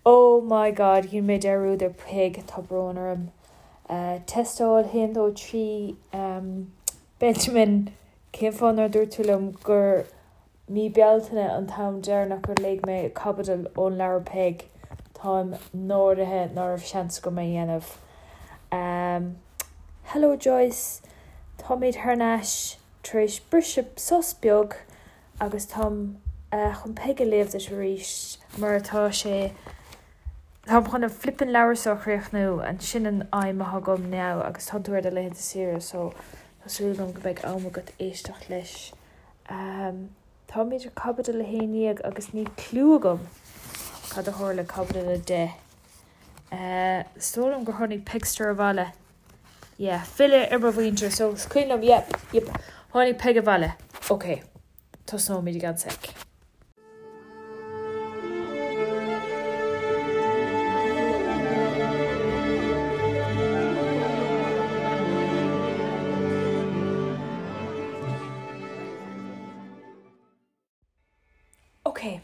Oh my God, dhein mé dearúd ar Peig, tá brón orm. Tástáil 1, 2, 3, Benjamin, cén fáth nár dúirt tú liom gur mí Bealtaine an t-am deireanach gur léigh mé caibidil ón leabhar Peig? Táim náirithe ná raibh seans agam é a dhéanamh. Hello Joyce, táimid thar n-ais tar éis briseadh sos beag agus táim chun Peig a léamh duit arís mar atá sé, táim chun an flippin leabhar seo a chríochnú and sin an aidhm atá agam now agus tánn tú ar do laethanta saoire so tá súil agam go mbeidh am agat éisteacht leis. Táimid ar caibidil 11 agus níl cliú agam cad a tharla i caibidil 10. Is dóigh liom gur tháinig Pegster abhaile. Yeah, filleadh ar mo mhuintir, so is cuimhin liom, yep, yep, tháinig Peig abhaile. Ok, tosnóimid i gceann sec. Ok,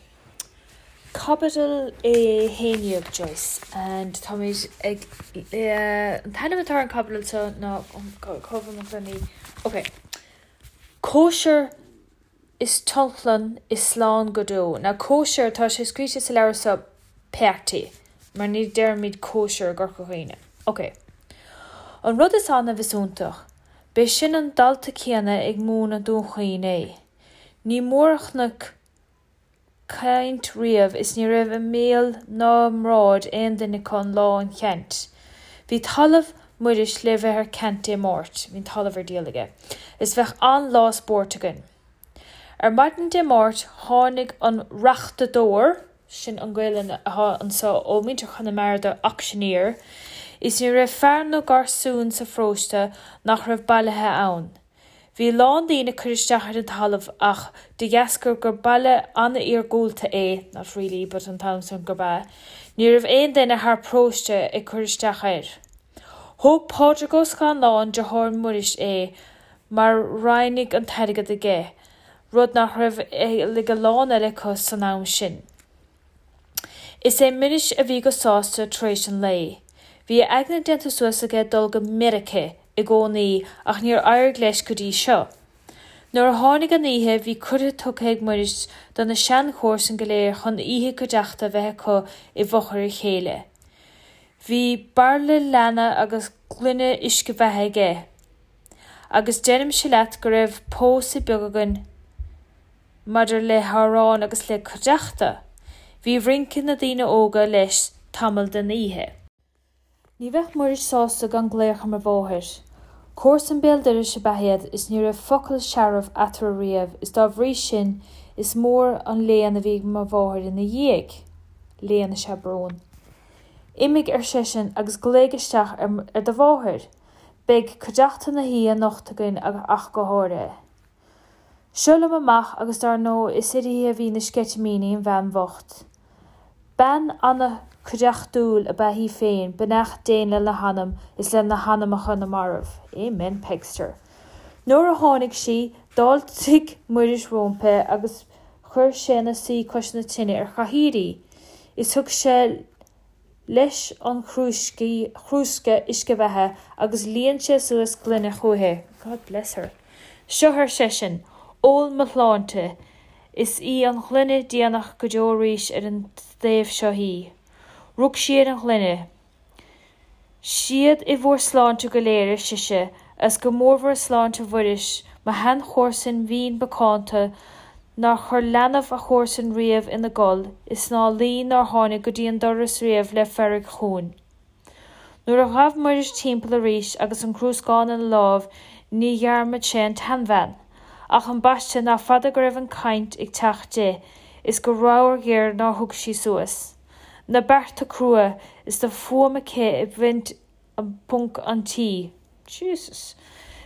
Caibidil 11 Joyce and táimid ag an t-ainm atá ar an caibidil seo ná cá bhfuil mo ghloiní? Ok, Cóisir is Tionchlann is Slán go Deo. Now cóisir, tá sé scríte sa leabhar seo party mar ní deirimid cóisir i gCorca Dhuibhne. Ok. An rud is annamh is iontach, b'é sin an dalta céanna ag múineadh Dún Chaoin é. Ní mór a chonac caint riamh is ní raibh i mbéal ná i mbráid aon duine acu an lá an cheant. Bhí talamh Mhuiris le bheith ar ceant Dé Máirt, bhí an talamh ar díol aige, is bheadh an-lá spóirt againn. Ar maidin Dé Máirt tháinig an reachtadóir, sin an Ghaelainn atá anso ó mhuintir Chonamara do auctioneer, is ní raibh fear nó garsún sa pharóiste nach raibh bailithe ann. Bhí a lán daoine ag cur isteach ar an talamh ach de dheasca gur baile an-iargúlta é, not really, but an t-am san gurb ea, ní raibh aon duine thar paróiste ag cur isteach air. Thóg Pádraig Ó Scanláin, deartháir Mhuiris, é mar ráinig an t-airgead aige, rud nach raibh ag a lán eile acu san am sin. Is é Muiris a bhí go sásta tar éis an lae. Bhí a aigne déanta suas aige dul go Meirice i gcónaí ach níor éirigh leis go dtí seo. Nuair a tháinig an oíche bhí cuireadh tugtha ag Muiris do na seanchomharsain go léir chun oíche cuideachta a bheith acu i bhfochair a chéile. Bhí bairille leanna agus gloine uisce bheatha aige. Agus deirimse leat go raibh pósadh beag againn. Maidir le hamhráin agus le cuideachta, bhí rince na ndaoine óga leis tamall den oíche. Ní bheadh Muiris sásta gan glaoch ar mo mháthair. Comharsain béal dorais ab ea iad is ní raibh focal searbh eatarthu riamh is dá bhrí sin is mór an léan a bhí ag mo mháthair ina dhiaidh. Léan is ea brón. Imigh, ar seisean, agus glaoigh isteach ar do mháthair. Beidh cuideachta na hoíche anocht againn ach go háirithe. Seo liom amach agus dar ndóigh is uirthi a bhí na sceitimíní, an bhean bhocht. Bean an-chuideachtúil ab ea í féin, beannacht Dé lena hanam is le na hanamacha na marbh. Amen, Pegster. Nuair a tháinig sí, d'fháiltigh Muiris róimpi agus chuir sé ina suí cois na tine ar chathaoir í, is thug sé leis an chrúsca uisce bheatha agus líon sé suas gloine chúichi. God bless her. Seo, ar seisean, ól mo shláinte, is í an ghloine déanach go deo arís ar an dtaobh seo í. Rug sí ar an ghloine. Siad i bhur sláinte go léir, ar sise, agus go mórmhór i sláinte Mhuiris, mo sheanchomharsain mhín mhacánta, nár chuir leanbh a chomharsan riamh ina gol is ná luí nár tháinig go dtí an doras riamh le fearg chugainn. Nuair a ghabh Muiris timpeall arís agus an crúscán ina láimh ní dhearmad sé an tseanbhean. Ach ambaiste nach fada go raibh an chaint ag teacht di is go ramhar ghéar nár thug sí suas. Na bearta crua is tá fuaim aici ag baint ponc an tí. Jesus.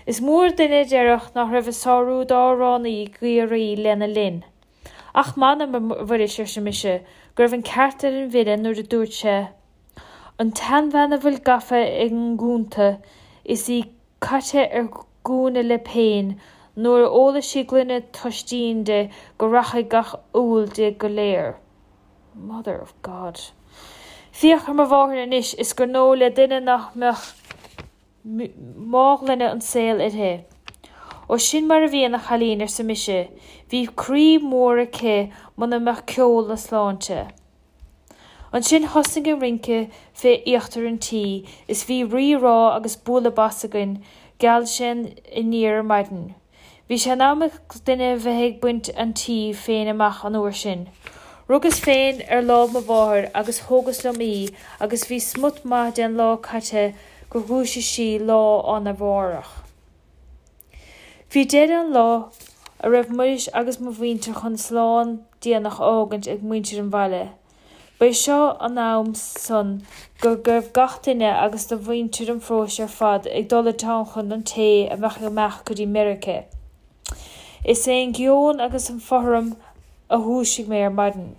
Is mór duine a déarfadh nach raibh a sárú d'amhránaí i gCiarraí lena linn. Ach m'anam, a Mhuiris, arsa mise, go raibh an ceart ar an bhfile nuair a dúirt sé, An tseanbhean a bhfuil gafa i ngúnta is í caite ar gúna le péin, nuair a ólfaidh sí gloine toistín di go rachaidh gach úll di go léir. Mother of God. Féach ar mo mháthair anois is gur ndóigh le duine nach mbeadh mághloine an tsaoil uirthi. Ó sin mar a bhíonn, a chailín, arsa mise, bhí croí mór aici muna mbeadh ceol na sláinte. Ansin thosnaigh an rince fé íochtar an tí is bhí rí rá agus bualadh bas againn, gheal sé aniar ar maidin. Bhí sé in am ag duine bheith ag baint an tí féin amach an uair sin. Rugas féin ar láimh mo mháthar agus thógas liom í agus bhí smut maith den lá caite gur dhúisigh sí lá arna mhárach. Bhí deireadh an lá a raibh Muiris agus mo mhuintir chun slán déanach a fhágaint ag muintir an bhaile. Ba é seo an am san go raibh gach duine agus de mhuintir an pharóiste ar fad ag dul i dtionlacan an té a bheadh ag imeacht go dtí Meirice. Is é an geoin agus an fothram a dhúisigh mé ar maidin.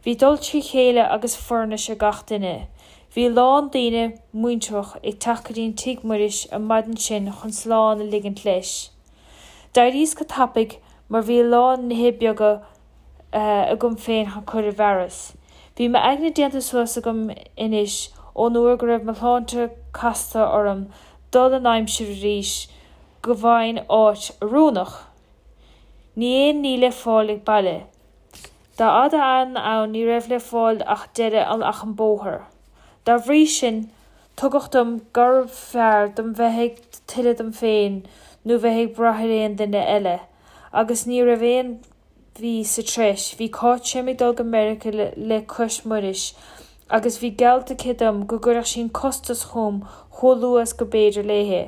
Bhí dul trí chéile agus foirnis ar gach duine. Bhí a lán daoine muinteartha ag teacht go dtí tigh Mhuiris an maidin sin chun slán a ligint leis. D'éiríos go tapaidh mar bhí a lán nithe beaga agam féin chun cur i bhfearas. Bhí m'aigne déanta suas agam anois ón uair go raibh mo shláinte casta orm dul in aimsir arís go bhfaighinn áit oiriúnach. Ní aon ní le fáil ag baile. Dá fhada ann ní raibh le fáil ach deireadh ach an bóthar. Dá bhrí sin tuigeadh dom gurbh fhearr dom bheith ag tuilleadh dom féin nó bheith ag brath ar aon duine eile. Agus ní raibh aon mhí sa treis, bhí Cáit Seim ag dul go Meiriceá le cois Muiris agus bhí geallta aici dom go gcuirfeadh sí an costas chugam chomh luath is go b'fhéidir léi.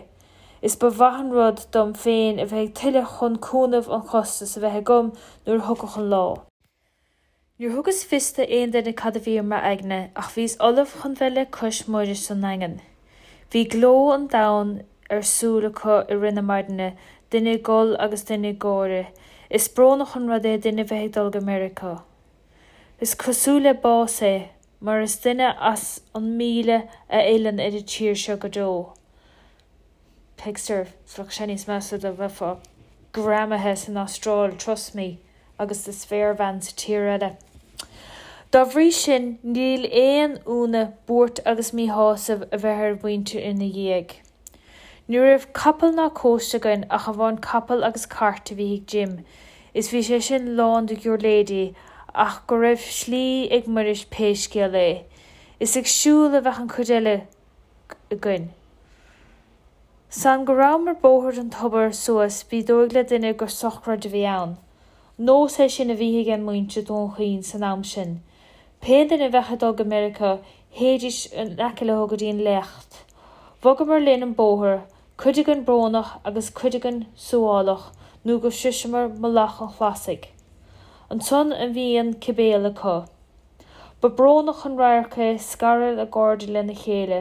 Is ba mhaith an rud dom féin a bheith ag tuilleadh chun cúnamh an chostais a bheith agam nuair a thiocfadh an lá. Níor thugas fios d'aon duine cad a bhí ar m'aigne ach bhíos ullamh chun bheith le cois Muiris sa nDaingean. Bhí gleo an domhain ar súil acu i rith na maidine, duine ag gol agus duine ag gáire. Is brónach an rud é duine bheith ag dul go Meiriceá. Is cosúil le bás é, mar is duine as an 1000 a fhilleann ar an tír seo go deo. Pegster, Bheadh sé níos measa dá mbeifeá greamaithe san Astráil, trust me, agus do spéirbhean sa tír eile. Dá bhrí sin, níl aon ionadh buairt agus míshásamh a bheith ar mhuintir ina dhiaidh. Ní raibh capall ná cóiste againn ach amháin capall agus cairt a bhí ag Jim, is bhí sé sin lán de ghiúirléidí ach go raibh slí ag Muiris pé scéal é. Is ag siúl a bheadh an chuid eile againn. San go rabhamar bóthar an tobair suas bhí dóigh le duine gur sochraid a bhí ann. Nós é sin a bhí ag muintir Dhún Chaoin san am sin. Pé duine a bheadh ag dul go Meiriceá théidís in aice leo go dtí an léacht. Bhogamar linn an bóthar, cuid againn brónach agus cuid againn suáileach nó go sroiseamar Mullach an Chlasaigh. Ansan a bhí an cibéal acu. Ba brónach an radharc é scaradh a gcairde lena chéile.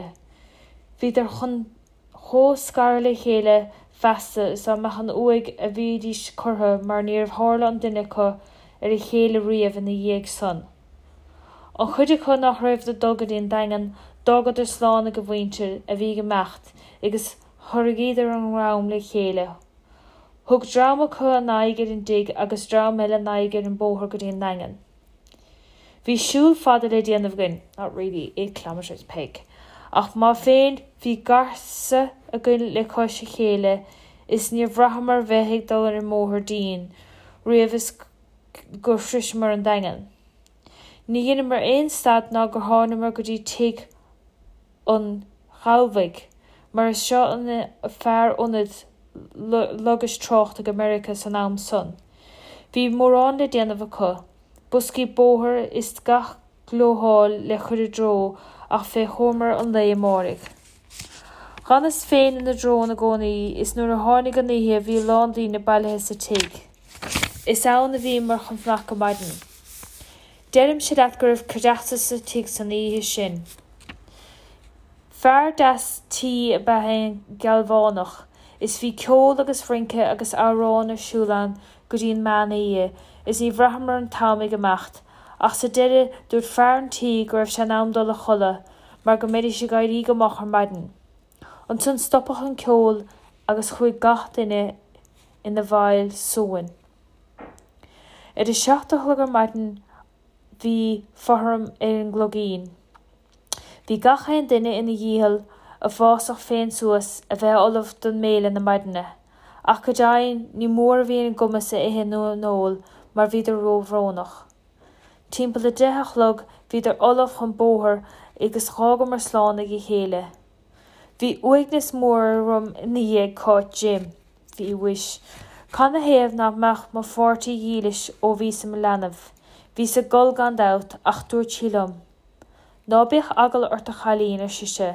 Bhíodar chun chomh scaradh le chéile feasta is dá mbeadh an uaigh a bhídís curtha mar níor tharla an duine acu ar a chéile riamh ina dhiaidh san. An chuid acu nach raibh ag dul go dtí an Daingean, d'fhágadar slán ag a mhuintir a bhí ag imeacht agus chorraíodar a ndream le chéile. Thug dream acu a n-aghaidh ar an dtigh agus dream eile a n-aghaidh ar an bóthar go dtí an Daingean. Bhí siúl fada le déanamh againn, not really, 8 kilometres, Peig, ach má féin bhí garsa againn le cois a chéile is níor bhraitheamar bheith ag dul ar an mbóthar dínn riamh is gur shroiseamar an Daingean. Ní dheineamar aon stad ná gur thánamar go dtí tigh an Ghalbhaigh, mar is seo an fear ionaid logais tráchta go Meiriceá san am san. Bhí mórán le déanamh acu, boscaí bóthair is gach gleotháil le cur i dtreo ach fé chomhar an lae amáirigh. Dh'fhanas féin ina dtreo i gcónaí is nuair a tháinig an oíche bhí a lán daoine bailithe sa tigh. Is ann a bhíomar chun fanacht go maidin. Deirimse leat go raibh cuideachta sa tigh san oíche sin. Fear deas tí ab ea é an Gealbhánach, is bhí ceol agus rince agus amhráin ar siúl ann go dtí an meán oíche, is ní bhraitheamar an t-am ag imeacht, ach sa deireadh dúirt fear an tí go raibh sé in am dul a chodladh mar go mbeidís ag éirí go moch ar maidin. Ansan stopadh an ceol agus chuaigh gach duine ina bhfeighil suain. Ar a seacht a chlog ar maidin. bhí fothram ar an gcloigín. Bhí gach aon duine ina dhícheall a bhfásach féin suas a bheith ullamh don mbéile na maidine, ach go deimhin ní mór a bhí ina gcumas a ithe nó a n-ól mar bhíodar róbhrónach. Timpeall a 10 a chlog bhíodar ullamh chun bóthair agus dh'fhágamar slán ag a chéile. Bhí uaigneas mór orm i ndiaidh Cáit Jim. Bhí mhuis. Canathaobh nach mbeadh mo pháirtí dhílis ó bhíos i mo leanbh. Bhíos ag gol gan dabht, ach dúirt sí liom. Ná bíodh eagla ort a chailín, ar sise.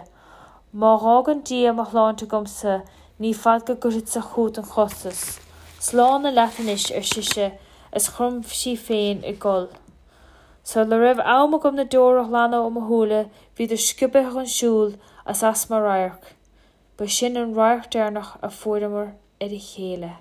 Má dh'fhágann Dia mo shláinte agamsa ní fada go gcuirfeadsa chugat an costas. Slán leat anois, ar sise, is chrom sí féin ag gol. Sula raibh am agam na deora a ghlanadh ó mo shúile bhíodar sciobtha chun siúil is as mo radharc. Ba sin an radharc deireanach a fuaireamar ar a chéile.